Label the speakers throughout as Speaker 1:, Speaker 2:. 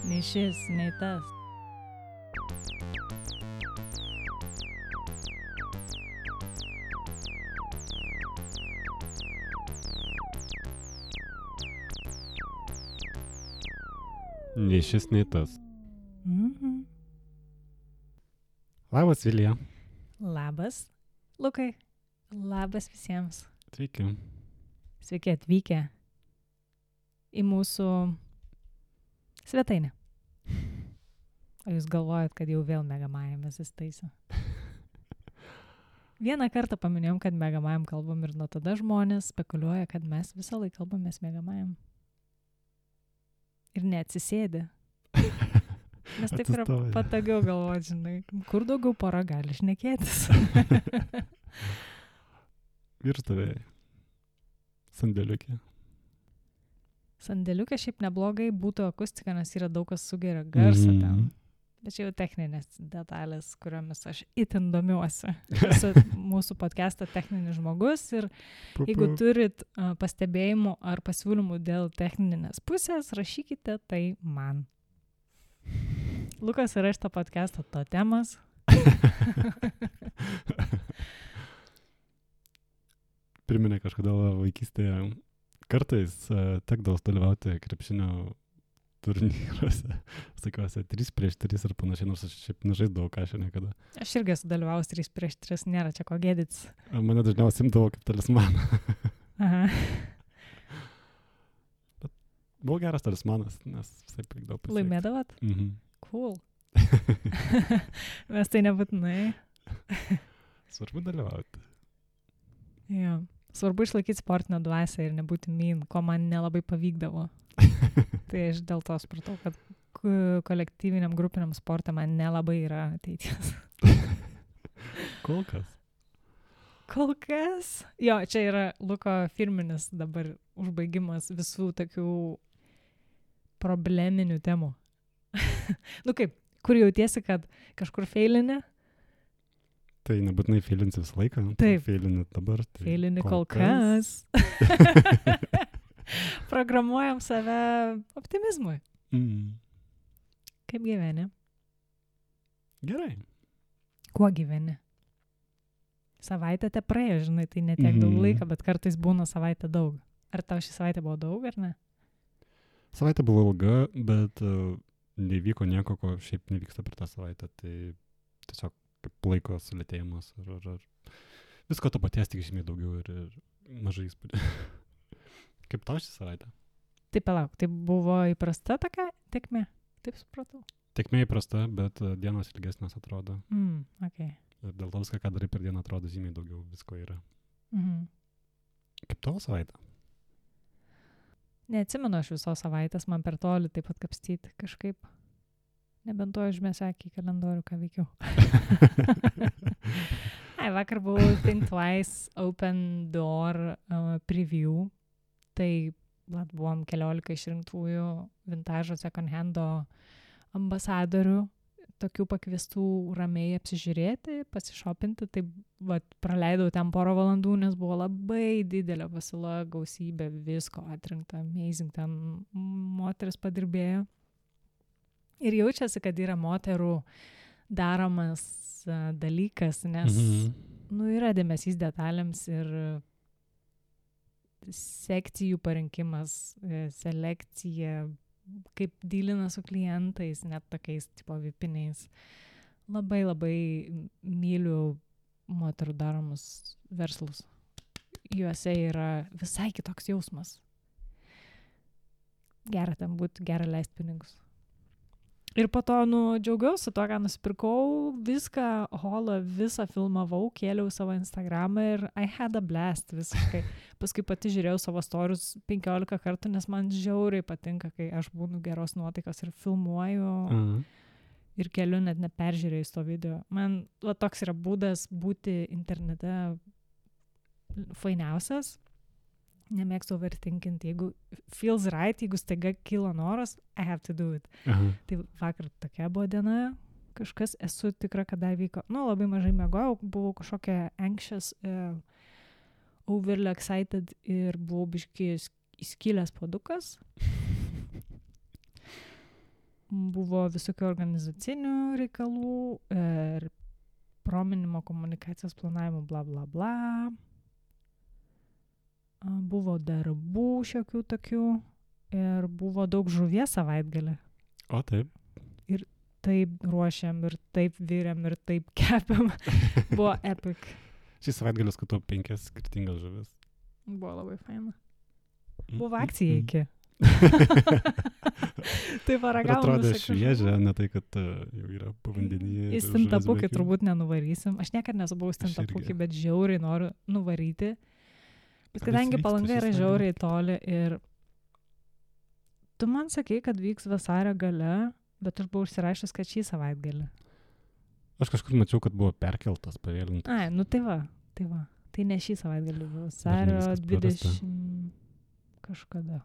Speaker 1: Nei šis, nei tas.
Speaker 2: Nei šis, nei tas.
Speaker 1: Mhm.
Speaker 2: Labas, Vilija.
Speaker 1: Labas, Lukai. Labas visiems.
Speaker 2: Sveiki.
Speaker 1: Sveiki atvykę į mūsų svetainę. O jūs galvojat, kad jau vėl Megamajamės įstaisiu? Vieną kartą paminėjom, kad Megamajam kalbam ir nuo tada žmonės spekuliuoja, kad mes visą laiką kalbamės Megamajam. Ir neatsisėdė. Nes taip yra
Speaker 2: Atsistoja.
Speaker 1: patogiau galvoti, žinai, kur daugiau pora gali šnekėtis.
Speaker 2: Ir stovėjai. Sandėliukė.
Speaker 1: Sandėliukė šiaip neblogai būtų akustika, nes yra daug kas sugeria garsą ten. Bet čia jau techninės detalės, kuriomis aš itin domiuosi. Esu mūsų podcast'o techninis žmogus ir jeigu turit pastebėjimų ar pasiūlymų dėl techninės pusės, rašykite tai man. Lukas yra šito podcast'o totemas.
Speaker 2: Priminė kažkada vaikystėje. Kartais tekdavo dalyvauti krepšinio turnyruose. Sakiuosi, 3-3 ir panašiai, nors aš šiaip nežaisdavau kažką niekada.
Speaker 1: Aš irgi esu dalyvaus 3-3, nėra čia ko gėdytis.
Speaker 2: Mane dažniausiai imdavo kaip talismaną.
Speaker 1: Aha.
Speaker 2: Buvo geras talismanas, nes visai pavykdavo pasiekti.
Speaker 1: Laimėdavot?
Speaker 2: Mhm.
Speaker 1: Cool. Mes tai nebūtinai.
Speaker 2: Svarbu dalyvauti.
Speaker 1: Jo. Svarbu išlaikyti sportinę dvasią ir nebūti mean, ko man nelabai pavykdavo. Tai aš dėl to supratau, kad kolektyviniam grupiniam sportą man nelabai yra ateities.
Speaker 2: Kol kas.
Speaker 1: Kol kas? Jo, čia yra Luko firminis dabar užbaigimas visų tokių probleminių temų. Nu kaip, kur jautiesi, kad kažkur feilini?
Speaker 2: Tai nebūtinai feilinsi visą laiką.
Speaker 1: Taip.
Speaker 2: Feilini dabar. Tai
Speaker 1: Feilini kol kas. Programuojam save optimizmui.
Speaker 2: Mm.
Speaker 1: Kaip gyveni?
Speaker 2: Gerai.
Speaker 1: Kuo gyveni? Savaitę te praėjo, žinai, tai netiek daug laiko, bet kartais būna savaitę daug. Ar tau šį savaitę buvo daug, ar ne?
Speaker 2: Savaitė buvo ilga, bet nevyko nieko, ko šiaip nevyksta per tą savaitę. Tai tiesiog kaip laiko sulėtėjimas. Ar visko to paties tik žymiai daugiau ir mažai įspūdį. Kaip tau šį savaitę?
Speaker 1: Tai palauk, tai buvo įprasta tokia tekmė? Taip supratau.
Speaker 2: Tekmė įprasta, bet dienos ilgesnės atrodo.
Speaker 1: Okay.
Speaker 2: Ir dėl to viską, ką darai per dieną, atrodo žymiai daugiau visko yra.
Speaker 1: Mhm.
Speaker 2: Kaip tavo savaitę?
Speaker 1: Neatsimenu aš visos savaitės, man per toli taip pat kapstyti kažkaip. Nebent to užmėsiu akį į kalendorių, ką veikiau. Vakar buvau Think Twice Open Door preview. Tai buvom 14 išrinktųjų vintažo second hando ambasadorių, tokių pakviestų ramiai apsižiūrėti, pasišopinti. Tai praleidau ten porą valandų, nes buvo labai didelė pasiūla, gausybė visko atrinkta, amazing, ten moteris padirbėjo. Ir jaučiasi, kad yra moterų daromas dalykas, nes yra dėmesys detalėms ir sekcijų parinkimas, selekcija, kaip dylina su klientais, net tokiais tipo vipiniais. Labai labai myliu moterų daromus verslus. Juose yra visai kitoks jausmas. Gera ten būti, gera leisti pinigus. Ir po to, džiaugiausi to, ką nusipirkau, viską, holą, visą filmavau, kėliau savo Instagramą ir I had a blast visiškai. Paskui pati žiūrėjau savo storius 15 kartų, nes man žiauriai patinka, kai aš būnu geros nuotaikos ir filmuoju ir keliu net neperžiūrėjus to video. Man toks yra būdas būti internete fainiausias. Nemėgstu overthinkinti. Jeigu feels right, jeigu staiga kilo noras, I have to do it. Tai vakar tokia buvo diena, kažkas esu tikra, kad dar vyko. Labai mažai miegojau, buvau kažkokia anxious overly excited ir buvau biškį įskilęs puodukas. Buvo visokių organizacinių reikalų ir prominimo komunikacijos planavimo bla bla bla. Buvo darbų šiokių tokių ir buvo daug žuvies savaitgalį.
Speaker 2: O taip.
Speaker 1: Ir taip ruošiam, ir taip vyriam, ir taip kepiam. Buvo epic.
Speaker 2: Šį savaitgalį skatau 5 skirtingas žuvis.
Speaker 1: Buvo labai faina. Buvo akcija iki. Tai paragavom.
Speaker 2: Atrodo šviežia, ne tai, kad jau yra povandenyje.
Speaker 1: Į stintapukį turbūt nenuvarysim. Aš niekada nesu buvus stintapukį, bet žiauriai noriu nuvaryti. Bet kadangi Palanga yra žiauriai toli ir tu man sakei, kad vyks vasario gale, bet aš buvau užsirašęs, kad šį savaitgalį.
Speaker 2: Aš kažkur mačiau, kad buvo perkeltas, pavėlintas.
Speaker 1: Ai, nu tai va. Tai ne šį savaitgalį buvo. Vasario 20 kažkada.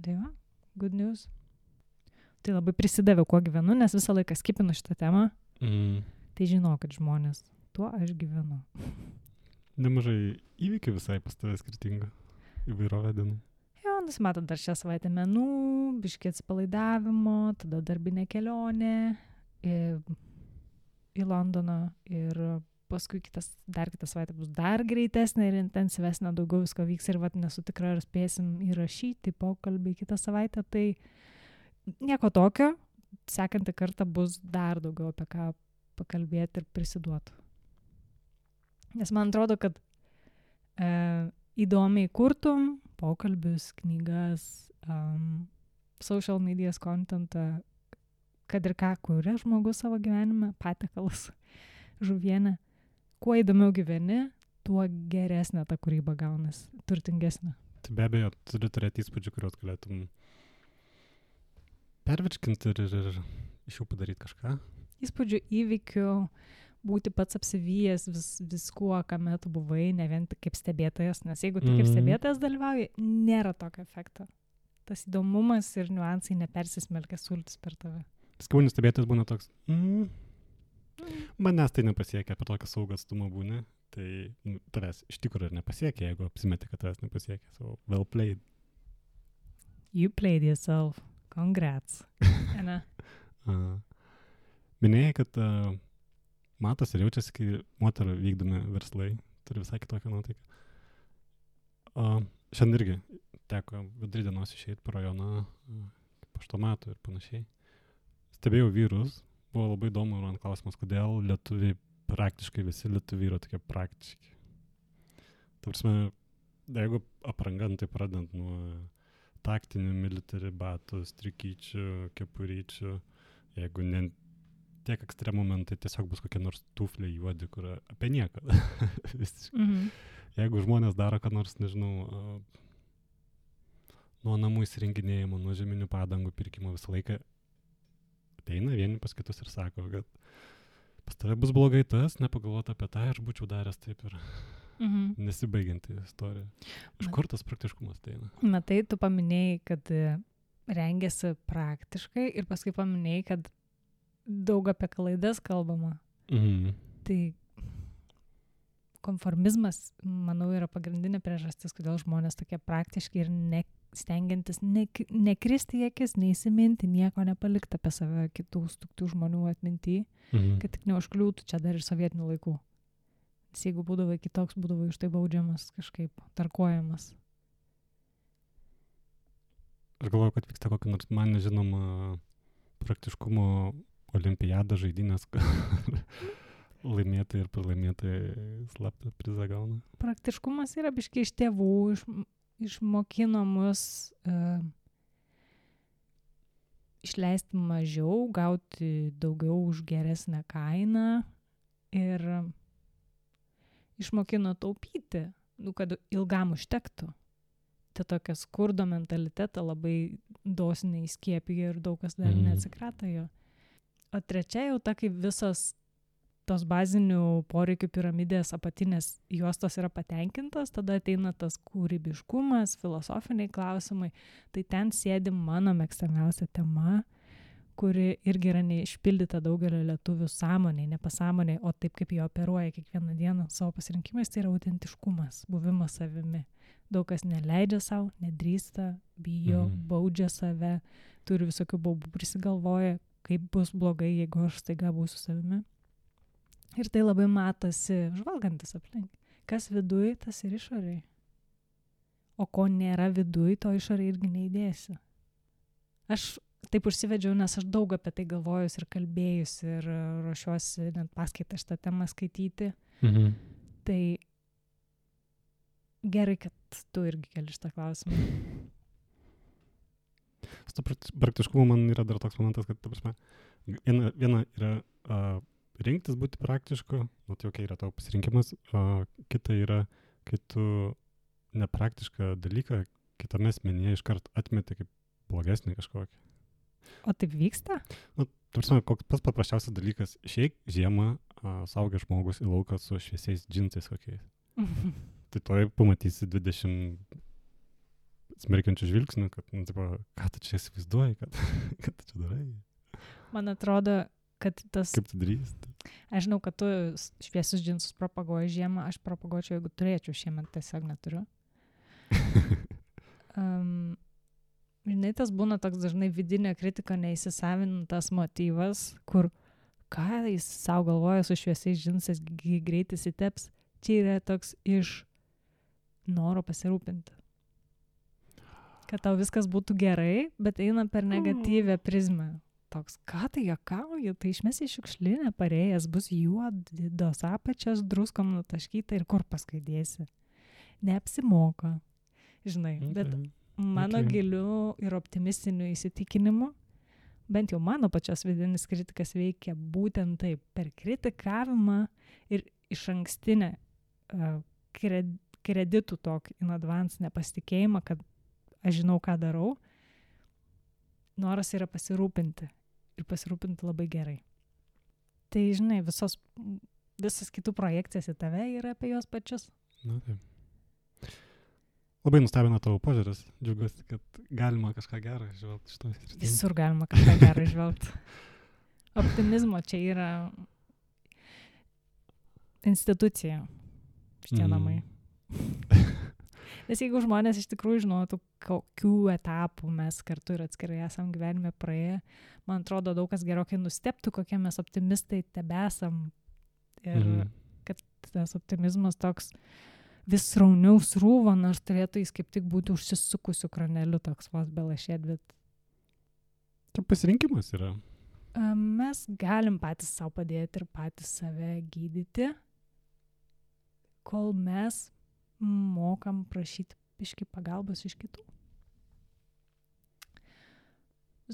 Speaker 1: Tai va, good news. Tai labai prisidaviau, kuo gyvenu, nes visą laiką skipinu šitą temą. Tai žinau, kad žmonės, tuo aš gyvenu.
Speaker 2: Nemažai įvykių visai pas tave skirtingų įvairovę dienų.
Speaker 1: Jo, nusimato dar šią savaitę menų, biškį atsipalaidavimo, tada darbinė kelionė į Londoną ir paskui dar kitą savaitę bus dar greitesnė ir intensyvesnė, daugiau visko vyks ir vat nesu tikra, ar spėsim įrašyti pokalbį kitą savaitę, tai nieko tokio, sekantį kartą bus dar daugiau apie ką pakalbėti ir prisiduoti. Nes man atrodo, kad įdomiai kurtum pokalbius, knygas, social medias contentą, kad ir ką kuria žmogus savo gyvenime, patiekalus, žuvienę. Kuo įdomiau gyveni, tuo geresnė ta kūryba gaunas, turtingesnė.
Speaker 2: Tai be abejo, turi turėti įspūdžių, kuriuos galėtum pervirškinti ir iš jų padaryti kažką.
Speaker 1: Įspūdžių, įvykių, būti pats apsivijęs viskuo, kame tu buvai, ne vien tik kaip stebėtojas, nes jeigu tu kaip stebėtojas dalyvauji, nėra tokio efekto. Tas įdomumas ir niuansai nepersismelkia sultis per tave.
Speaker 2: Skaunius stebėtojas būna toks, manęs tai nepasiekia, apie tokį saugą atstumą būni, tai tavęs iš tikrųjų ir nepasiekia, jeigu apsimeti, kad tavęs nepasiekia. So, well played.
Speaker 1: You played yourself. Congrats.
Speaker 2: Minėjai, kad matos ir jaučiasi, kai moterų vykdomi verslai turi visai kitokią nuotaiką. Šiandien irgi teko vidurį dienos išeiti po rajoną, paštomatų ir panašiai. Stebėjau vyrus, buvo labai įdomu man klausimas, kodėl lietuviai, praktiškai visi lietuviai yra tokie praktiški. Tavrasme, jeigu apranga, tai pradant nuo taktinių military batų, strikyčių, kepuryčių, jeigu ne tiek ekstremų momentai, tiesiog bus kokie nors tufliai juodi, kur apie nieką. Jeigu žmonės daro, ką nors, nežinau, nuo namų įsirenginėjimo, nuo žeminių padangų pirkimo visą laiką ateina vieni pas kitus ir sako, kad pas tave bus blogai tas, nepagalvota apie tą, aš būčiau daręs taip ir nesibaigianti istorija. Iš kur tas praktiškumas ateina?
Speaker 1: Matai, tu paminėjai, kad rengiasi praktiškai ir paskui paminėjai, kad daug apie klaidas kalbama. Tai konformizmas, manau, yra pagrindinė priežastis, kodėl žmonės tokie praktiški ir stengiantis nekristi į akis, neįsiminti, nieko nepalikti apie save kitų žmonių atminty, kad tik neužkliūtų čia dar ir sovietinių laikų. Nes jeigu būdavai kitoks, būdavai už tai baudžiamas, kažkaip tarkuojamas.
Speaker 2: Aš galvoju, kad vyksta kokia nors man nežinoma praktiškumo olimpiada žaidynės, laimėtai ir pralaimėtai slaptą prizą gauna.
Speaker 1: Praktiškumas yra biškai iš tėvų, išmokino mus išleisti mažiau, gauti daugiau už geresnę kainą ir išmokino taupyti, kad ilgam užtektų. Tai tokia skurdo mentalitetą labai dosniai įskiepija ir daug kas dar neatsikrato jo. O trečia jau ta, kai visos tos bazinių poreikių piramidės apatinės juostos yra patenkintos, tada ateina tas kūrybiškumas, filosofiniai klausimai. Tai ten sėdi mano mėgstamiausia tema, kuri irgi yra neišpildyta daugelio lietuvių sąmonėj, nepasąmonėj, o taip kaip jie operuoja kiekvieną dieną savo pasirinkimais, tai yra autentiškumas, buvimas savimi. Daug kas neleidžia savo, nedrįsta, bijo, baudžia save, turi visokių baubų prisigalvoja, kaip bus blogai, jeigu aš staiga būsiu savimi. Ir tai labai matosi žvalgantis aplink. Kas viduj, tas ir išoriai. O ko nėra viduj, to išoriai irgi neįdėsi. Aš taip užsivedžiau, nes aš daug apie tai galvojus ir kalbėjus ir ruošiuosi net paskaitą šitą temą skaityti. Tai gerai, kad tu irgi keli šitą klausimą.
Speaker 2: Su praktiškumu man yra dar toks momentas, kad, ta prasme, viena yra rinktis būti praktišku, tai okay, yra tavo pasirinkimas, kita yra, kai tu nepraktišką dalyką kitame asmenyje iškart atmeti kaip blogesnį kažkokį.
Speaker 1: O taip vyksta?
Speaker 2: Koks pats paprasčiausias dalykas, išeik žiemą saugęs žmogus į lauką su šviesiais džinsais kokiais. Tai toj pamatysi 20 smerkiančių žvilgsnių, kad, ką tu čia įsivaizduoji, kad tu čia darai.
Speaker 1: Man atrodo, kad tas...
Speaker 2: Kaip tu drįsti?
Speaker 1: Aš žinau, kad tu šviesius džinsus propaguoji žiemą, aš propaguočiau, jeigu turėčiau šiemet, tiesiog neturiu. Žinai, tas būna toks dažnai vidinė kritika, neįsisavintas motyvas, kur ką jis savo galvoja su šviesiais džinsais, greitai įsiteps, čia yra toks iš noro pasirūpinti. Kad tau viskas būtų gerai, bet eina per negatyvę prizmę. Toks, ką tai juokauja, tai išmesi šiukšlinę parėjęs, bus juodos apačios, druskom nutaškyta ir kur paskui dėsi. Neapsimoka, žinai, bet mano giliu ir optimistiniu įsitikinimu, bent jau mano pačios vidinis kritikas veikia būtent taip, per kritikavimą ir išankstinę kreditų tokį in advance nepasitikėjimą, kad aš žinau, ką darau, noras yra pasirūpinti ir pasirūpinti labai gerai. Tai, žinai, visas kitų projekcijas į tave yra apie juos pačius.
Speaker 2: Na, taip. Labai nustebino tavo požiūris. Džiaugiuosi, kad galima kažką gerą išvelgti šitoj srityje.
Speaker 1: Visur galima kažką gerą išvelgti. Optimizmo čia yra institucija šitie namai. Nes jeigu žmonės iš tikrųjų žinotų, kokių etapų mes kartu ir atskirai esam gyvenime praėję, man atrodo, daug kas gerokai nustebtų, kokie mes optimistai tebesam. Ir kad tas optimizmas toks vis rauniau srūva, nors turėtų jis kaip tik būti užsisukusiu kraneliu toks vos belašėt, bet...
Speaker 2: Tai pasirinkimas yra.
Speaker 1: Mes galim patys savo padėti ir patys save gydyti, kol mes mokam prašyti biškį pagalbos iš kitų.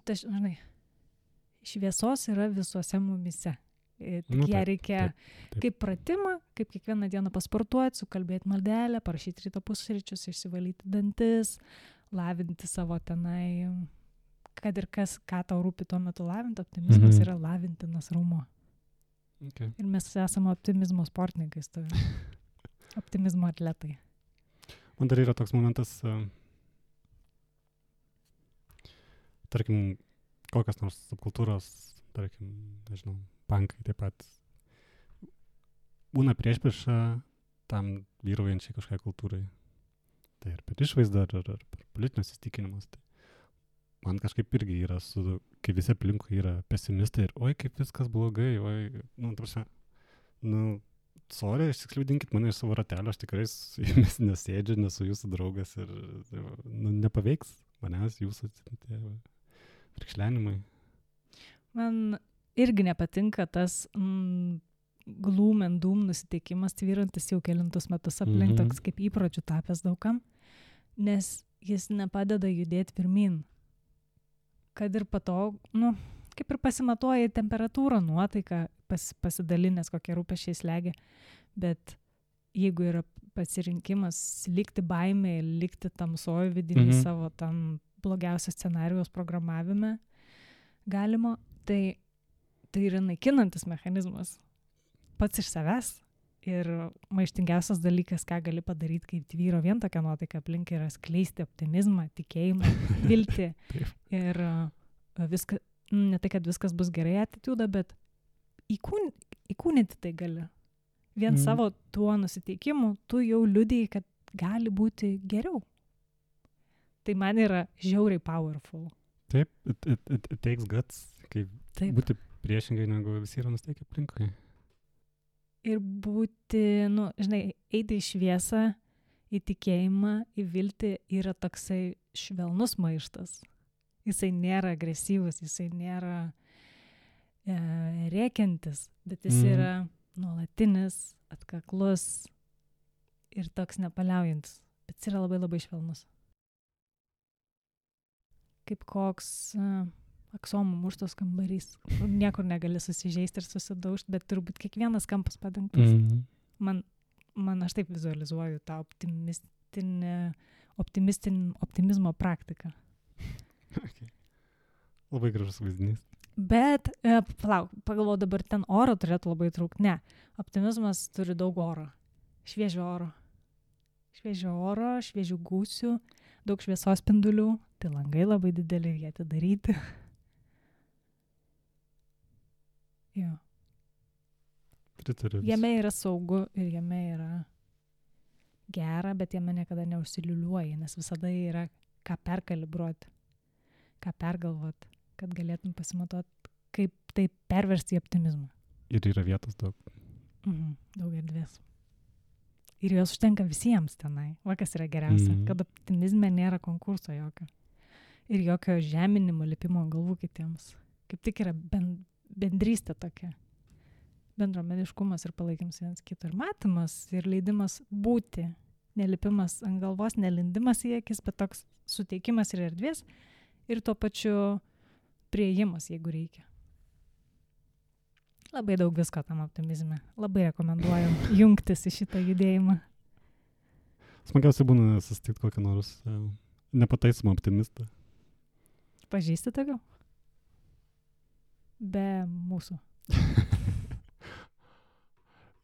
Speaker 1: Tai, žinai, šviesos yra visuose mumyse. Tik ją reikia taip. Kaip pratimą, kaip kiekvieną dieną pasportuoti, sukalbėti maldelę, parašyti ryto pusryčius, išsivalyti dantis, lavinti savo tenai, kad ir kas, ką tau rūpi tuo metu lavinti, optimizmas yra lavintinas raumuo.
Speaker 2: Okay.
Speaker 1: Ir mes esame optimizmo sportininkai, optimizmo atletai.
Speaker 2: Man dar yra toks momentas, tarkim, kokios nors subkultūros, tarkim, nežinau, pankai taip pat būna priešprieša tam vyraujančiai kažkokiai kultūrai. Tai ir per išvaizdą, ar per politinius įsitikinimus. Tai man kažkaip irgi yra, kai visi aplinkui yra pesimistai ir oi, kaip viskas blogai, oi, sorry, išsikliaudinkit mane iš savo ratelio, aš tikrai su jumis nesėdžiu, nesu jūsų draugas ir nepaveiks manęs jūsų frikšlenimai.
Speaker 1: Man irgi nepatinka tas gloom and doom nusiteikimas tvyrantis jau kelintus metus aplink, toks kaip įpročių tapęs daugam, nes jis nepadeda judėti pirmin. Kad ir pato, kaip ir pasimatuoja temperatūrą, nuotaiką, pasidalinęs kokie rūpesčiai slegia, bet jeigu yra pasirinkimas likti baimėje, likti tamsoj vidinį savo tam blogiausios scenarijos programavime galima, tai yra naikinantis mechanizmas pats iš savęs ir maištingiausias dalykas, ką gali padaryti, kaip tvyro vien tokia nuotaika aplink, yra skleisti optimizmą, tikėjimą, viltį ir viską ne tai, kad viskas bus gerai attitude, bet įkūnyti tai gali. Vien savo tuo nusiteikimu tu jau liudiji, kad gali būti geriau. Tai man yra žiauriai powerful.
Speaker 2: Taip, it takes guts, kaip būti priešingai, negu visi yra nusteikę aplinkai.
Speaker 1: Ir būti, eiti į šviesą, į tikėjimą, į viltį yra toksai švelnus maištas. Jisai nėra agresyvus, jisai nėra rėkiantis, bet jis yra nuolatinis, atkaklus ir toks nepaliaujantis. Bet jis yra labai labai švelnus. Kaip koks aksomų muštos kambarys. Niekur negali susižeisti ir susidaužti, bet turbūt kiekvienas kampas padengtas. Man aš taip vizualizuoju tą optimizmo praktiką.
Speaker 2: Okay. Labai gražus vaizdinys.
Speaker 1: Bet, pagalvoju, dabar ten oro turėtų labai trūkti. Ne, optimizmas turi daug oro. Šviežio oro. Šviežių gūsių, daug šviesos spindulių. Tai langai labai dideli ir jie atidaryti. Jo.
Speaker 2: Pritariu.
Speaker 1: Jame yra saugu ir jame yra gera, bet jame niekada neužsiliuliuoji, nes visada yra ką perkalibruoti, ką pergalvoti, kad galėtum pasimatuoti, kaip tai perversti į optimizmą.
Speaker 2: Ir yra vietos daug.
Speaker 1: Daug erdvės. Ir jos užtenka visiems tenai. Va, kas yra geriausia, kad optimizme nėra konkurso jokio. Ir jokio žeminimo, lipimo ant galvų kitiems. Kaip tik yra bendrystė tokia. Bendruomeniškumas ir palaikymas vienas kito. Ir matymas, ir leidimas būti. Nelipimas ant galvos, nelindimas į akis, bet toks suteikimas ir erdvės. Ir tuo pačiu priėjimas, jeigu reikia. Labai daug visko tam optimizme. Labai rekomenduoju jungtis į šitą judėjimą.
Speaker 2: Smagiausiai būna susitikti kokią nors nepataisomą optimistą.
Speaker 1: Pažįsti tokių? Be mūsų.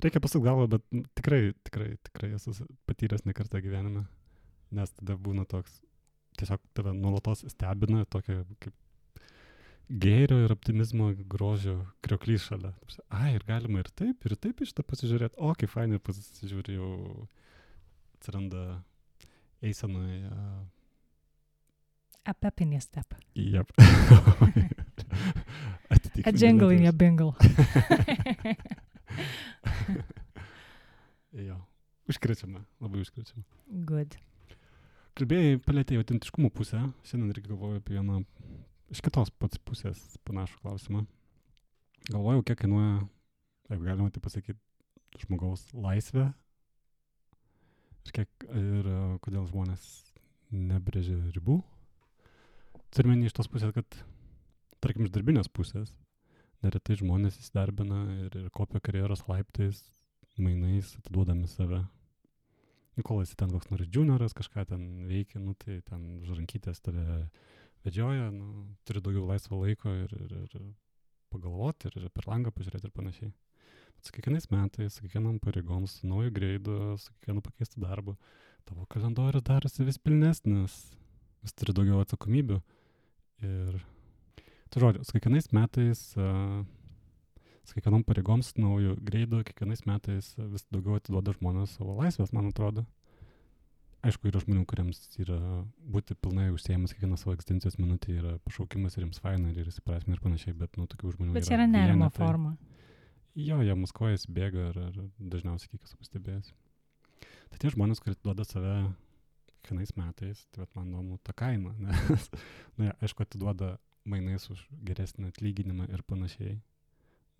Speaker 2: Reikia pasukti galvą, bet tikrai esu patyręs ne kartą gyvenime. Nes tada būna toks, tiesiog tave nuolatos stebina tokia kaip gėrio ir optimizmo grožio krioklys šalia. Ir galima ir taip iš tą pasižiūrėti. O, kaip fainai pasižiūrė, jau atsiranda eisenoje.
Speaker 1: A pep in your step.
Speaker 2: Yep.
Speaker 1: A jingle in your bingle.
Speaker 2: Jo, užkrečiama, labai užkrečiama.
Speaker 1: Good.
Speaker 2: Kalbėjai, palėtėjai autentiškumo pusę. Šiandien irgi galvoju apie vieną iš kitos pats pusės panašų klausimą. Galvojau, kiek kainuoja, jeigu galima tai pasakyti, žmogaus laisvė. Ir kodėl žmonės nebrėžia ribų. Turime iš tos pusės, kad, tarkim, iš darbinės pusės, neretai žmonės įsidarbina ir kopia karjeros laiptais, mainais, atiduodami save. Kol esi ten koks nors junioras, kažką ten veikia, tai ten žrankytės tave vedžioja, turi daugiau laisvo laiko ir pagalvoti, ir per langą pažiūrėti ir panašiai. Su kiekvienais metais, su kiekvienam pareigom, su nauju greidu, su kiekvienu pakeistu darbu, tavo kalendorius darosi vis pilnesnis, vis turi daugiau atsakomybių. Ir tai žodžiu, su kiekvienais metais, su kiekvienom pareigom, su nauju greidu, kiekvienais metais vis daugiau atiduoda žmonės savo laisvės, man atrodo. Aišku, yra žmonių, kuriems yra būti pilnai užsiėmus kiekvieną savo egzistencijos minutę, yra pašaukimas ir jiems faina ir įsiprasmina ir panašiai, bet tokių žmonių yra.
Speaker 1: Bet čia yra nerimo forma.
Speaker 2: Jo, jie muskuojasi, bėga ir dažniausiai kiek esu pastebėjęs. Tai tie žmonės, kurie atiduoda save kiekvienais metais, tai man įdomu ta kaina, nes, aišku, atiduoda mainais už geresnį atlyginimą ir panašiai,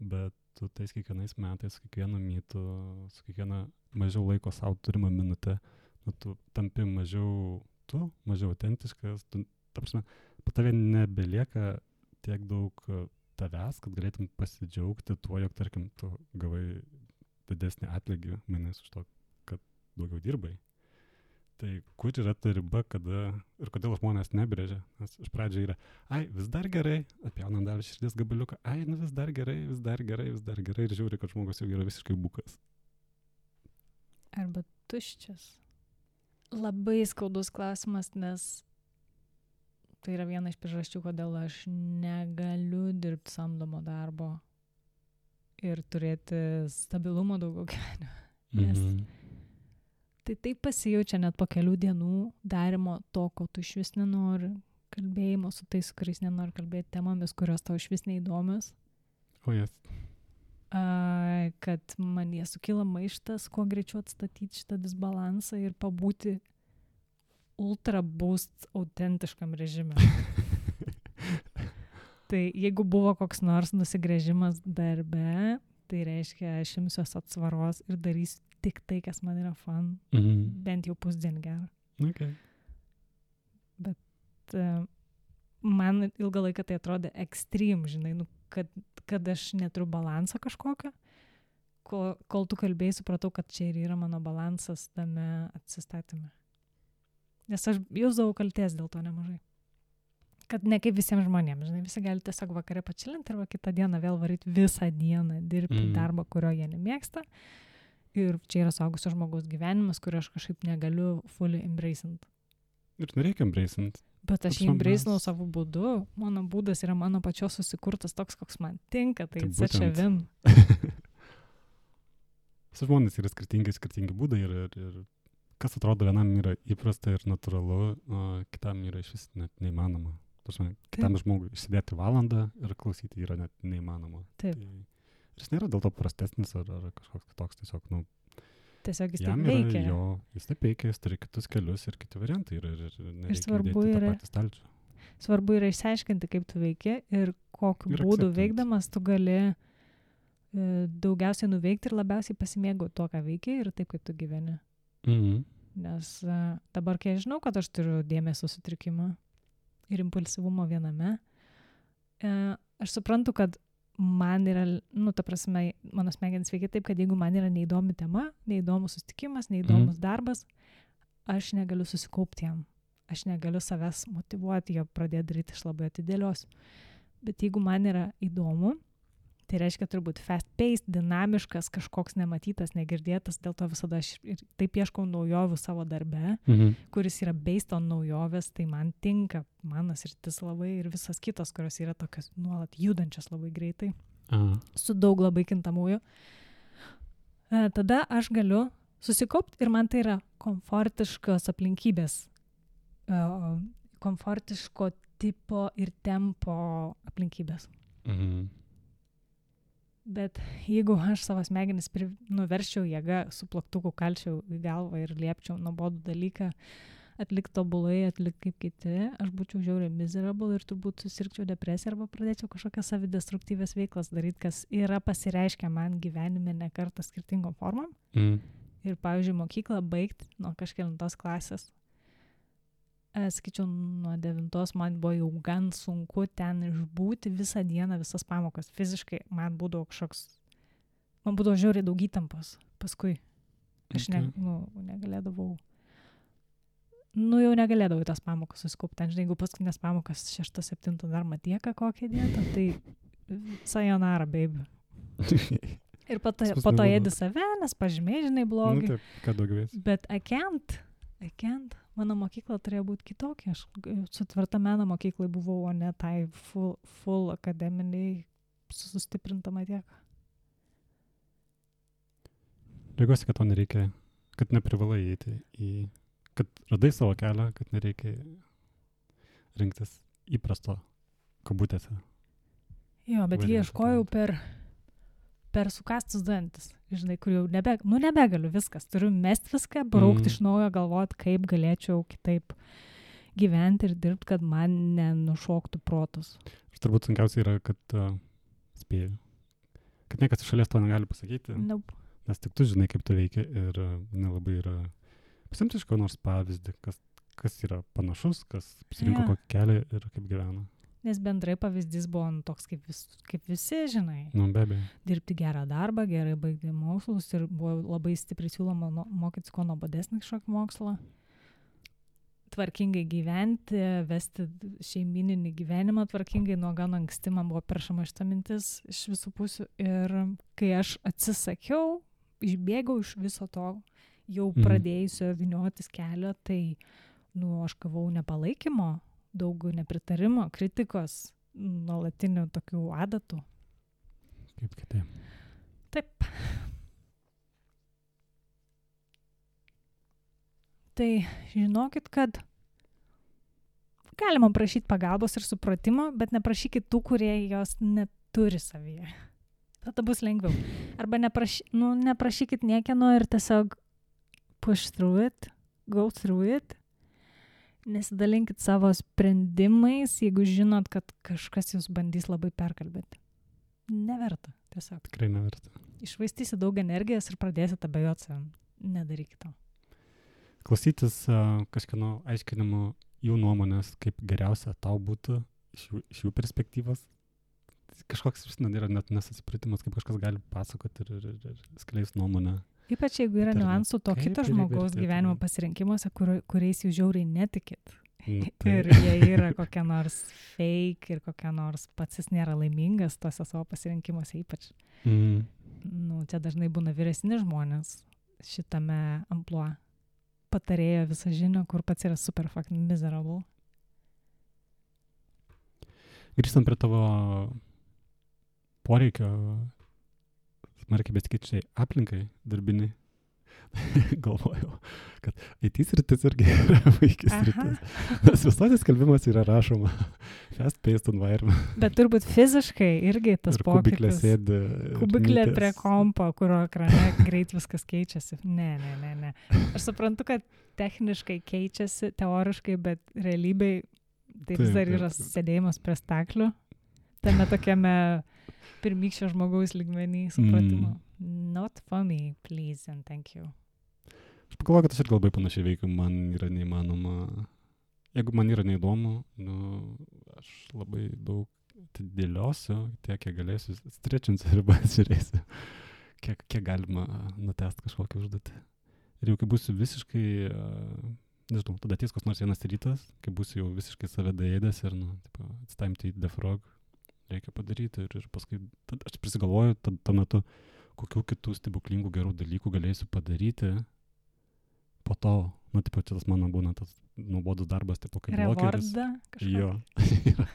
Speaker 2: bet tu tais kiekvienais metais, su kiekvienu mytu, su kiekviena mažiau laiko savo turimą minutę, tu tampi mažiau autentiškas, ta prasme, po tave nebelieka tiek daug tavęs, kad galėtum pasidžiaugti tuo, jog, tarkim, tu gavai didesnį atlygį mainais už to, kad daugiau dirbai. Tai kur yra ta riba, kada ir kodėl žmonės nebrėžia? Nes iš pradžio yra, vis dar gerai, atpjaunam dar širdies gabaliuką, vis dar gerai, ir žiūri, kad žmogus jau yra visiškai bukas.
Speaker 1: Arba tuščias. Labai skaudus klausimas, nes Tai yra viena iš priežasčių, kodėl aš negaliu dirbti samdomo darbo ir turėti stabilumo daugiau gyvenime. Nes tai taip pasijaučia net po kelių dienų darimo to, ko tu iš vis nenori, kalbėjimo su tais, kuriais nenori kalbėti temomis, kurios tau iš vis neįdomios. Kad man jie sukyla maištas, kuo greičiau atstatyti šitą disbalansą ir pabūti ultra boost autentiškam režime. Tai jeigu buvo koks nors nusigręžimas darbe, tai reiškia, aš imsiuos atsvaros ir darysiu tik tai, kas man yra fun. Bent jau pusdienį gerą.
Speaker 2: Okay.
Speaker 1: Bet man ilgą laiką tai atrodė ekstrem, žinai, kad aš neturiu balansą kažkokio. Kol tu kalbėjai, supratau, kad čia ir yra mano balansas tame atsistatyme. Nes aš jausdavau kaltės dėl to nemažai. Kad ne kaip visiems žmonėms, žinai, visi gali tiesiog vakare pačilinti arba kitą dieną vėl varyti visą dieną, dirbti darbą, kurio jie nemėgsta. Ir čia yra suaugusio žmogaus gyvenimas, kurio aš kažkaip negaliu fully embracint.
Speaker 2: Ir nereikia embracint.
Speaker 1: Bet aš jį embracinau savo būdu. Mano būdas yra mano pačios susikurtas toks, koks man tinka. Tai such a win.
Speaker 2: Su žmonės yra skirtingi būdai ir kas atrodo vienam yra įprasta ir natūralu, o kitam yra iš vis net neįmanoma. Kitam žmogui išsėdėti valandą ir klausyti yra net neįmanoma.
Speaker 1: Taip.
Speaker 2: Ir jis nėra dėl to prastesnis ar kažkoks kitoks, tiesiog,
Speaker 1: tiesiog jis taip veikia.
Speaker 2: Jis taip veikia, jis turi kitus kelius ir kiti variantai ir nereikia dėti tą patį stalčių.
Speaker 1: Svarbu yra išsiaiškinti, kaip tu veiki ir kokiu būdu veikdamas tu gali daugiausiai nuveikti ir labiausiai pasimėgauti tuo, ką veiki ir taip, kaip tu gyveni. Nes dabar, kai aš žinau, kad aš turiu dėmesio sutrikimą ir impulsyvumo viename, aš suprantu, kad man yra, ta prasme, mano smegenys veikia taip, kad jeigu man yra neįdomi tema, neįdomus susitikimas, neįdomus darbas, aš negaliu susikaupti jam. Aš negaliu savęs motyvuoti, jo pradėti daryti, aš labai atidėliosiu. Bet jeigu man yra įdomu, tai reiškia turbūt fast-paced, dinamiškas, kažkoks nematytas, negirdėtas, dėl to visada aš ir taip ieškau naujovių savo darbe, kuris yra based on naujovės, tai man tinka, mano sritis labai ir visas kitos, kurios yra tokios nuolat judančios labai greitai, su daug labai kintamųjų. Tada aš galiu susikaupti ir man tai yra komfortiškos aplinkybės, komfortiško tipo ir tempo aplinkybės. Bet jeigu aš savo smegenis nuverščiau jėgą, su plaktuku kalčiau į galvą ir liepčiau nuobodų dalyką atlikti tobulai, atlikti kaip kiti, aš būčiau žiauriai miserable ir turbūt susirgčiau depresiją arba pradėčiau kažkokias savidestruktyvės veiklas daryti, kas yra pasireiškę man gyvenime ne kartą skirtingom formom. Ir pavyzdžiui, mokyklą baigti nuo kažkelintos klasės. Sakyčiau, nuo 9 man buvo jau gan sunku ten išbūti visą dieną, visas pamokas. Fiziškai man būdavo žiauriai daug įtampos. Paskui aš negalėdavau, jau negalėdavau į tas pamokas susikaupti. Ten, žinai, jeigu paskutinės pamokas 6-7 dar matieka kokią dietą, tai sayonara, baby. Ir po to ėdi save, nes pažymiai, žinai, blogai.
Speaker 2: Taip, ką daugiau esi.
Speaker 1: Bet I can't. Mano mokykla turėjo būti kitokia. Aš su tvirta meno mokyklai buvau, o ne tai full akademiniai sustiprinta matieka.
Speaker 2: Džiaugiuosi, kad to nereikia, kad neprivalai eiti kad radai savo kelią, kad nereikia rinktis įprasto kabutėse.
Speaker 1: Jo, bet jį ieškojau per sukastus dantis, žinai, kur jau nebegaliu viskas, turiu mest viską, braukti iš naujo, galvoti, kaip galėčiau kitaip gyventi ir dirbti, kad man nenušoktų protus.
Speaker 2: Ir turbūt sunkiausia yra, kad spėju, kad niekas iš šalies to negali pasakyti, nes tik tu žinai, kaip tu veikia ir nelabai yra pasimti iš ko nors pavyzdį, kas yra panašus, kas pasirinko kokį kelią ir kaip gyvena.
Speaker 1: Nes bendrai pavyzdys buvo toks kaip visi, žinai.
Speaker 2: Be abejo.
Speaker 1: Dirbti gerą darbą, gerai baigti mokslus ir buvo labai stipriai siūloma mokytis kuo nuobodesnį kažkokį mokslą. Tvarkingai gyventi, vesti šeimininį gyvenimą tvarkingai, nuo gan anksti man buvo peršama šita mintis iš visų pusių. Ir kai aš atsisakiau, išbėgau iš viso to, jau pradėjusio vyniotis kelio, tai aš gavau nepalaikymo daug nepritarimo, kritikos, nuolatinių tokių adatų.
Speaker 2: Kaip kitaip.
Speaker 1: Taip. Tai žinokit, kad galima prašyti pagalbos ir supratimo, bet neprašykit tų, kurie jos neturi savyje. Tada bus lengviau. Arba neprašykit niekieno ir tiesiog push through it, go through it. Nesidalinkit savo sprendimais, jeigu žinot, kad kažkas jūs bandys labai perkalbėti. Neverta, tiesiog.
Speaker 2: Tikrai neverta.
Speaker 1: Išvaistysi daug energijos ir pradėsit abejoti savim. Nedarykit to.
Speaker 2: Klausytis kažkieno aiškinimų jų nuomonės, kaip geriausia tau būtų iš jų perspektyvos. Kažkoks, yra net nesusipratimas, kaip kažkas gali pasakoti ir skleis nuomonę.
Speaker 1: Ypač jeigu yra niuansų to kito žmogaus gyvenimo pasirinkimuose, kuriais jūs žiauriai netikit. Ir jie yra kokia nors fake ir kokia nors pats jis nėra laimingas tose savo pasirinkimuose ypač. Čia dažnai būna vyresni žmonės šitame amplua. Patarėjo visą žinią, kur pats yra super fucking miserable.
Speaker 2: Grįžtant prie tavo poreikio smarkiai besikeičiai aplinkai darbiniai, galvojau, kad IT sritis irgi yra vaikis sritis. Nes visuose skelbimas yra rašoma fast-paced environment.
Speaker 1: Bet turbūt fiziškai irgi tas pokytis.
Speaker 2: Kubiklė sėdi.
Speaker 1: Kubiklė prie kompo, kurio ekrane greit viskas keičiasi. Ne. Aš suprantu, kad techniškai keičiasi, teoriškai, bet realybėj tai vis dar yra sėdėjimas prie staklių. Tame tokiame pirmykščio žmogaus lygmenį supratimo. Not for me, please and thank you.
Speaker 2: Aš pagalvoju, kad aš ir labai panašiai veikiu, man yra neįmanoma. Jeigu man yra neįdomu, aš labai daug dėliosiu, tiek, kiek galėsiu, strečinsiu ribas, žiūrėsiu, kiek galima nutest kažkokią užduotį. Ir jau kai būsiu visiškai, nežinau, tada ateis koks nors vienas rytas, kai būsiu jau visiškai save daėdęs ir, it's time to eat the frog, reikia padaryti ir paskui, aš prisigalvoju tuo metu, kokių kitų stebuklingų gerų dalykų galėsiu padaryti po to, čia tas mano būna tas nuobodus darbas, kaip blokeris.
Speaker 1: Revordą kažkokį?
Speaker 2: Jo.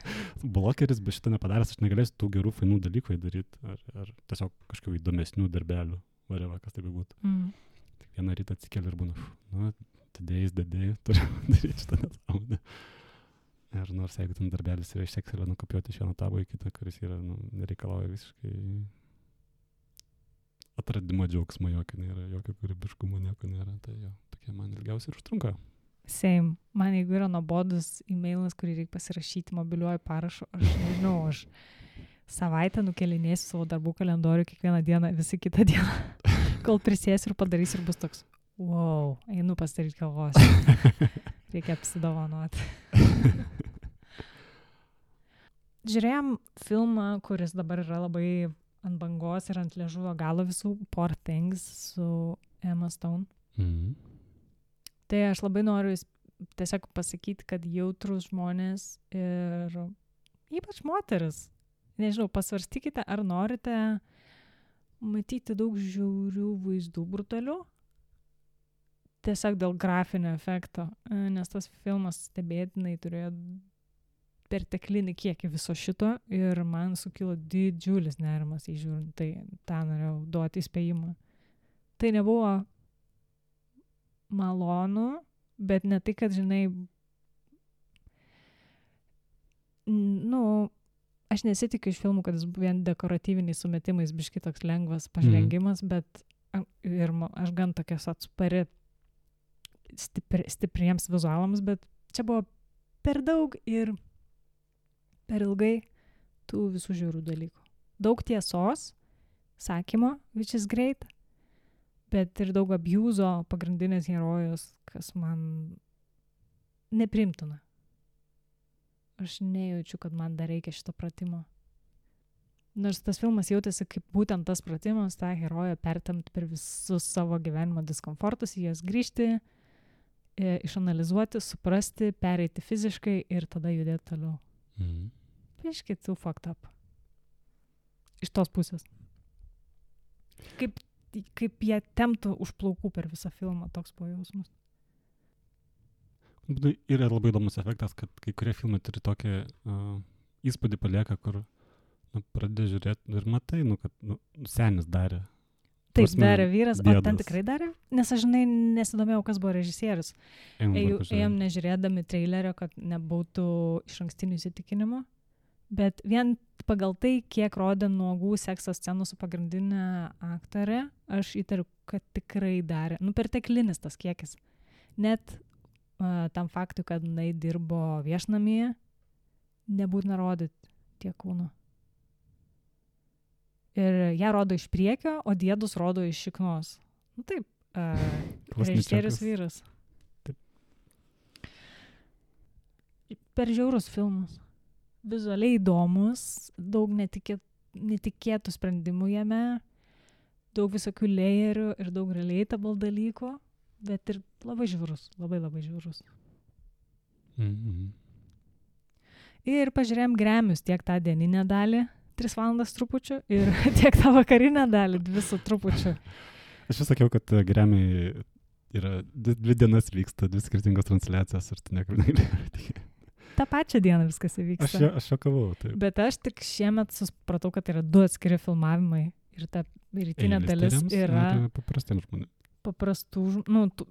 Speaker 2: Blokeris, bet šitą nepadaręs, aš negalėsiu tų gerų, fainų dalykų daryti, ar tiesiog kažkokių įdomesnių darbelių, varėva, kas tai būtų. Tik vieną rytą atsikeli ir būna, todėjais, turiu daryti šitą nesąmonę. Ir nors jeigu ten darbelis yra iš Excelio nukopiuoti iš vieno tabo į kitą, kuris yra, nereikalauja visiškai atradimo džiaugsmo, jokio kūrybiškumo nieko nėra, tai jo, tokie man ilgiausiai ir užtrunka.
Speaker 1: Same. Man jeigu yra nuobodus e-mailas, kurį reikia pasirašyti mobiliuoju parašu, aš nežinau, aš savaitę nukelinėsiu savo darbų kalendorių kiekvieną dieną, visi kitą dieną, kol prisėsiu ir padarysiu ir bus toks, wow, einu pasidaryti kavos. Reikia apsidovanoti. Žiūrėjom filmą, kuris dabar yra labai ant bangos ir ant liežuvio galo visų, Poor Things su Emma Stone. Tai aš labai noriu tiesiog pasakyti, kad jautrus žmonės ir ypač moteris, nežinau, pasvarstykite, ar norite matyti daug žiaurių vaizdų brutalių, tiesiog dėl grafinio efekto, nes tas filmas stebėtinai turėjo perteklinį kiekį viso šito ir man sukilo didžiulis nerimas įžiūrint, tai tą norėjau duoti įspėjimą. Tai nebuvo malonu, bet ne tai, kad, žinai, aš nesitikiu iš filmų, kad jis vien dekoratyviniais sumetimais biški toks lengvas pažvengimas, bet ir aš gan tokias atspari stipriems vizualams, bet čia buvo per daug ir per ilgai tų visų žiaurių dalykų. Daug tiesos, sakymo, which is great, bet ir daug abuzo pagrindinės herojos, kas man neprimtina. Aš nejaučiu, kad man dar reikia šito pratimo. Nors tas filmas jautėsi kaip būtent tas pratimas, tą heroją pertemti per visus savo gyvenimo diskomfortus, į jas grįžti, išanalizuoti, suprasti, pereiti fiziškai ir tada judėti toliau. Biškit too fucked up. Iš tos pusės. Kaip jie temptų už plaukų per visą filmą, toks buvo jausmas.
Speaker 2: Yra labai įdomus efektas, kad kai kurie filmai turi tokį įspūdį palieka, kur pradedi žiūrėti ir matai, kad senis darė.
Speaker 1: Taip,
Speaker 2: Prasme,
Speaker 1: darė vyras, o
Speaker 2: dėdas.
Speaker 1: ten tikrai darė? Nes aš, žinai, nesidomėjau, kas buvo režisierius. Ėjom nežiūrėdami trailerio, kad nebūtų iš ankstinių įsitikinimų, bet vien pagal tai, kiek rodė nuogų sekso scenų su pagrindinė aktorė, aš įtariu, kad tikrai darė. Perteklinis tas kiekis. Net tam faktui, kad jinai dirbo viešnamyje, nebūtina rodyti tiek kūno. Ir ją rodo iš priekio, o diedus rodo iš šiknos. Taip, režisierius vyras.
Speaker 2: Taip.
Speaker 1: Per žiaurus filmus. Vizualiai įdomus, daug netikėtų sprendimų jame, daug visokių layerių ir daug relatable dalykų, bet ir labai žiaurus, labai žiaurus.
Speaker 2: Mm-hmm.
Speaker 1: Ir pažiūrėjom Grammys tiek tą dieninę dalį, 3 valandas trupučių, ir tiek tą vakarinę dalį, 2 su trupučiu.
Speaker 2: Aš vis sakiau, kad Grammy yra 2 dienas vyksta, 2 skirtingos transliacijos ir tu niekur negali.
Speaker 1: tą pačią dieną viskas įvyksta.
Speaker 2: Aš šokavau, taip.
Speaker 1: Bet aš tik šiemet supratau, kad yra 2 atskiri filmavimai ir ta rytinė dalis yra
Speaker 2: paprastiems žmonėms.
Speaker 1: Paprastų,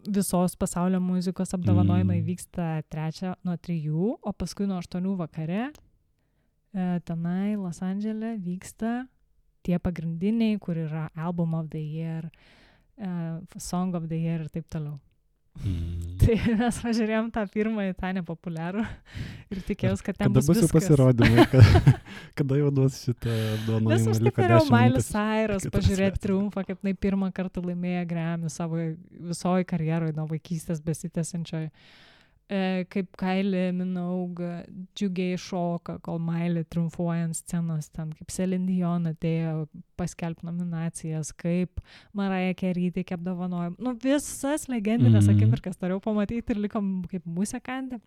Speaker 1: visos pasaulio muzikos apdovanojimai vyksta 3 nuo 3, o paskui nuo 8 vakare tenai Los Andžele vyksta tie pagrindiniai, kur yra Album of the Year, Song of the Year ir taip toliau. Tai mes važiūrėjom tą pirmąjį, tą nepopuliarų ir tikėjausi, kad ten bus viskas.
Speaker 2: Kada bus jau pasirodymai, kada jau duos šitą apdovanojimą?
Speaker 1: Nes aš taip norėjau Miley Cyrus pažiūrėti triumfą, kaip jinai pirmą kartą laimėjo Grammy savo visoje karjeroje nuo vaikystės besitęsiančioj. Kaip Kylie Minogue džiugiai šoka, kol Miley triumfuoja ant scenos, ten kaip Celine Dion atėjo paskelbti nominacijas, kaip Mariah Carey teikė apdovanojimą. Visas legendinės akimirkas norėjau pamatyti ir likom kaip musekantė.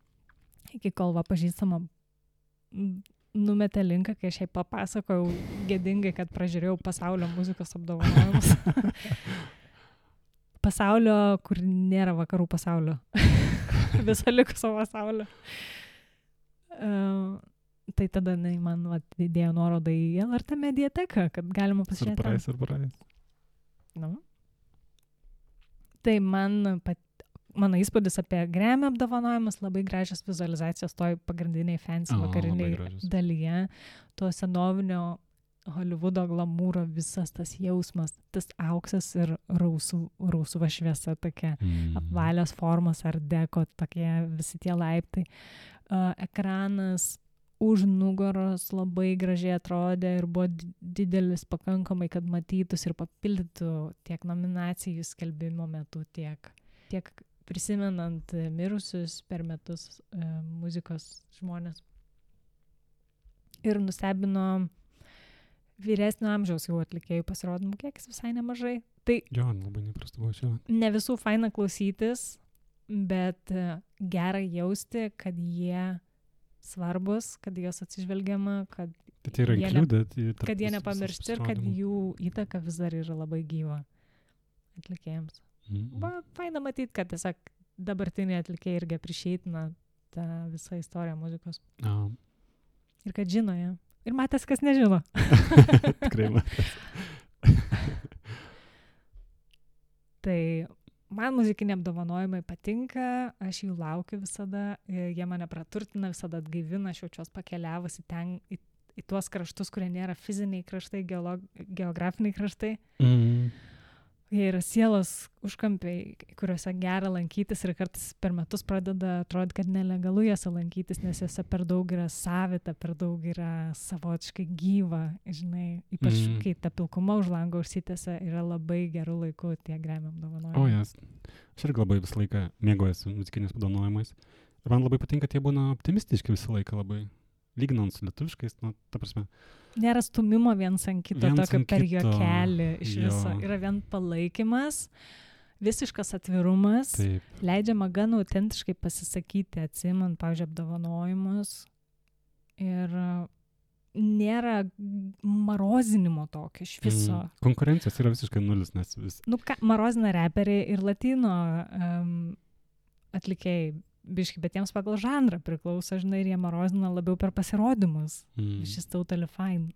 Speaker 1: Iki kol pažįstama numetė linką, kai aš jai papasakojau gėdingai, kad pražiūrėjau pasaulio muzikos apdovanojimus. Pasaulio, kur nėra vakarų pasaulio. Viso likusio pasaulio. Tai tada man įdėjo nuorodą į LRT mediateką, kad galima pasižiūrėti.
Speaker 2: Surprise.
Speaker 1: Tai mano įspūdis apie Grammy apdovanojimus, labai gražios vizualizacijos toj pagrindiniai fancy vakariniai dalyje, to senovinio Hollywoodo glamūro, visas tas jausmas, tas auksas ir rausva šviesa tokia, apvalios formos ar deko, tokie visi tie laiptai. Ekranas už nugaros labai gražiai atrodė ir buvo didelis pakankamai, kad matytus ir papildytų tiek nominacijų skelbimo metu, tiek prisimenant mirusius per metus muzikos žmonės. Ir nustebino vyresnio amžiaus jau atlikėjų pasirodymų kiekis visai nemažai. Tai
Speaker 2: jo, labai neprastų buvo šio.
Speaker 1: Ne visų faina klausytis, bet gera jausti, kad jie svarbus, kad jos atsižvelgiama, kad jie nepamiršti ir kad jų įtaka vis dar yra labai gyva atlikėjams. Faina matyti, kad tiesiog dabartiniai atlikėjai irgi apryšeitina tą visą istoriją muzikos. Ir kad žino ją. Ir matęs, kas nežino.
Speaker 2: Tikrai matęs.
Speaker 1: Tai man muzikiniai apdovanojimai patinka, aš jų laukiu visada, jie mane praturtina, visada atgaivina, aš jaučiuos pakeliavusi ten į tuos kraštus, kurie nėra fiziniai kraštai, geografiniai kraštai. Jie yra sielos užkampiai, kuriuose gera lankytis ir kartais per metus pradeda atrodyti, kad nelegalu juose lankytis, nes juose per daug yra savita, per daug yra savotiškai gyva, žinai, ypač kai ta pilkuma už lango užsitęsia, yra labai gerų laikų tie Grammy apdovanojimai.
Speaker 2: Aš irgi labai visą laiką mėgaujuosi muzikiniais apdovanojimais. Ir man labai patinka, tie būna optimistiški visą laiką labai. Lyginant su lietuviškais, ta prasme.
Speaker 1: Nėra stumimo viens ant kito, tokio per juokelį iš viso. Yra vien palaikymas, visiškas atvirumas, leidžiama gan autentiškai pasisakyti, atsimant, pavyzdžiui, apdovanojimus. Ir nėra marozinimo tokio iš viso.
Speaker 2: Konkurencijos yra visiškai nulis, nes vis.
Speaker 1: Marozina reperiai ir latino atlikėjai biški, bet jiems pagal žanrą priklauso, žinai, ir jie marozina labiau per pasirodymus. Šis totally fine.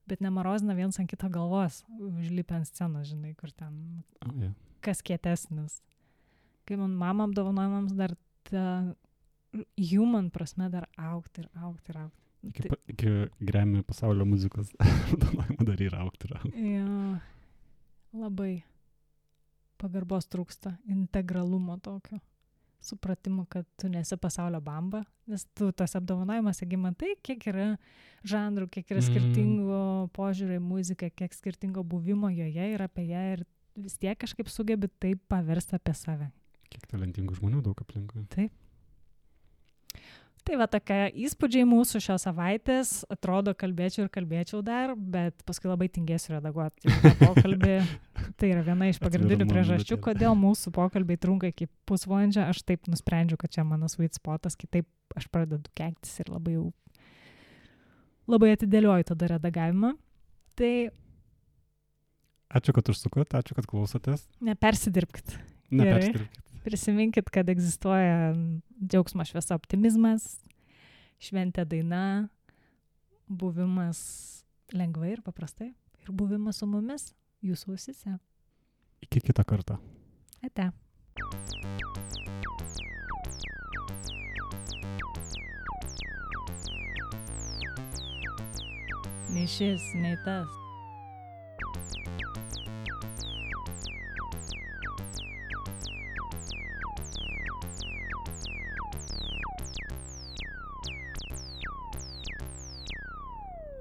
Speaker 1: Bet nemarozina viens ant kito galvos, užlipę ant scenos, žinai, kur ten kas kietesnis. Kai man mama apdovanojimams dar ta human prasme dar augti.
Speaker 2: Iki Grammy pasaulio muzikos apdovanojimo dar yra augti.
Speaker 1: Jo, labai pagarbos trūksta, integralumo tokio, supratimo, kad tu nesi pasaulio bamba, nes tu tas apdovanojimas, jeigu matai, kiek yra žanrų, kiek yra skirtingų požiūrį į muziką, kiek skirtingo buvimo joje ir apie ją ir vis tiek kažkaip sugebi taip paversti apie save.
Speaker 2: Kiek talentingų žmonių daug aplinkui.
Speaker 1: Taip. Tai va tokia įspūdžiai mūsų šios savaitės, atrodo kalbėčiau dar, bet paskui labai tingėsiu redaguoti tą pokalbį. Tai yra viena iš pagrindinių priežasčių, kodėl mūsų pokalbiai trunka iki pusvalandžio. Aš taip nusprendžiu, kad čia mano sweet spotas, kitaip aš pradedu keiktis ir labai atidėlioju tada redagavimą. Tai
Speaker 2: ačiū, kad užsukot, ačiū, kad klausotės.
Speaker 1: Nepersidirbkit.
Speaker 2: Nepersidirbkit.
Speaker 1: Prisiminkit, kad egzistuoja džiaugsmo šviesa optimizmas, šventė daina, buvimas lengvai ir paprastai ir buvimas su mumis, jūsų ausise.
Speaker 2: Iki kitą kartą.
Speaker 1: Ate. Nei šis, nei tas.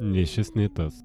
Speaker 2: Nei šis, nei tas.